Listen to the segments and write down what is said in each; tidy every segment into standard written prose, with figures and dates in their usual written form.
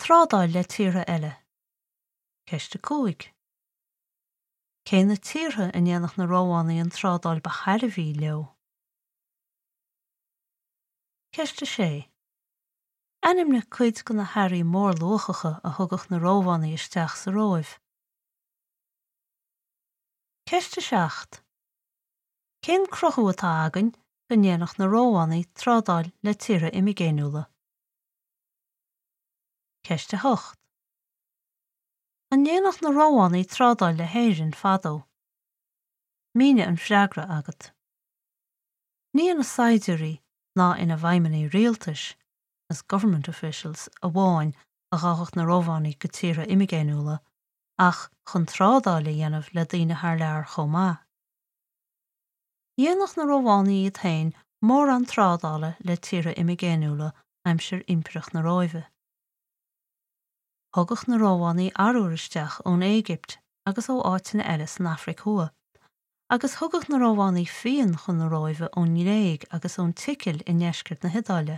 Trádáil le tíortha eile. Ceist 5. Cé na tíortha a ndéanadh na Rómhánaigh an trádáil ba thairbhí leo? Ceist 6. Ainmnigh cuid de na hearraí mórluachacha a thugadh na Rómhánaigh isteach sa Róimh. Ceist 7. Cén cruthú atá againn go ndéanadh na Rómhánaigh trádáil le tíortha imigéiniúla? Ceist 8. An ndéanadh na Rómhánaigh trádáil le hÉirinn fadó? Mínigh an freagra agat. Ní ina saighdiúirí ná ina bhfeidhmeannaigh rialtais, as government officials, amháin a ghabhadh na Rómhánaigh go tíortha imigéiniúla, ach chun trádáil a dhéanamh le daoine thar lear chomh maith. Dhéanadh na Rómhánaigh iad féin mórán trádála le tíortha imigéiniúla aimsir Impireacht na Róimhe. Thugadh na Rómhánaigh arbhar isteach ón Éigipt agus ó áiteanna eile san Afraic Thuaidh, agus thugadh na Rómhánaigh fíon chun na Róimhe ón nGréig agus ón tSicil i ndeisceart na hIodáile.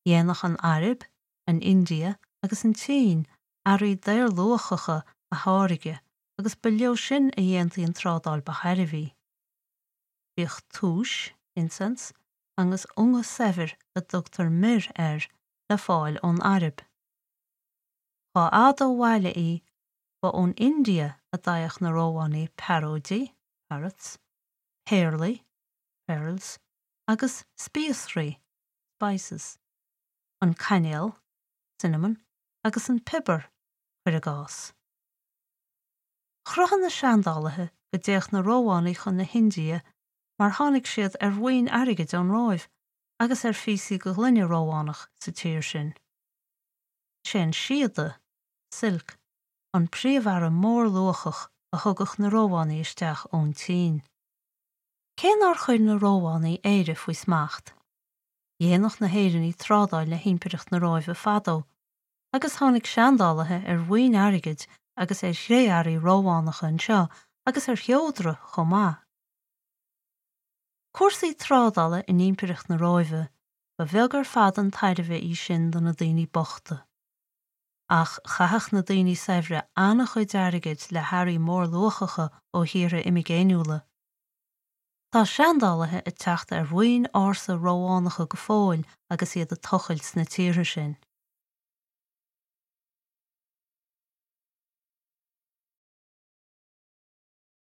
Dhéanadh an Araib, an India agus an tSín earraí daorluachacha a tháirgeadh agus ba leo sin a dhéantaí an trádáil ba thairbhí. Bhíodh túis, incense, agus unga saibhir a dtugtar myrrh air le fáil ón Araib. Dhá fhada ó bhaile í, ba ón India a d'fhaigheadh na Rómhánaigh pearóidí, parrots, péarlaí, pearls, agus spíosraí, spices, an cainéal, cinnamon, agus an piobar, cuir i gcás. Chruthaigh na seandálaithe go dtéadh na Rómhánaigh chun na hIndia mar tháinig siad ar bhoinn airgid ón Róimh agus ar phíosaí de ghloine Rómhánach sa tír sin. Is é an síoda, silk, an príomhearra mórluachach a thugadh na Rómhánaigh isteach ón tSín. Cé nár chuir na Rómhánaigh Éire faoi smacht, dhéanadh na hÉireannaigh trádáil le hImpireacht na Róimhe fadó agus tháinig seandálaithe ar bhoinn airgid agus ar chré-earraí Rómhánacha anseo agus ar sheodra chomh maith. Cúrsaí trádála in Impireacht na Róimhe, ba bheag ar fad an tairbhe í sin do na daoine bochta. Ach chaitheadh na daoine saibhre an-chuid airgid le hearraí mórluachacha ó thíortha imigéiniúla. Tá seandálaithe ag teacht ar bhoinn ársa Rómhánacha go fóill agus iad ag tochailt sna tíortha sin.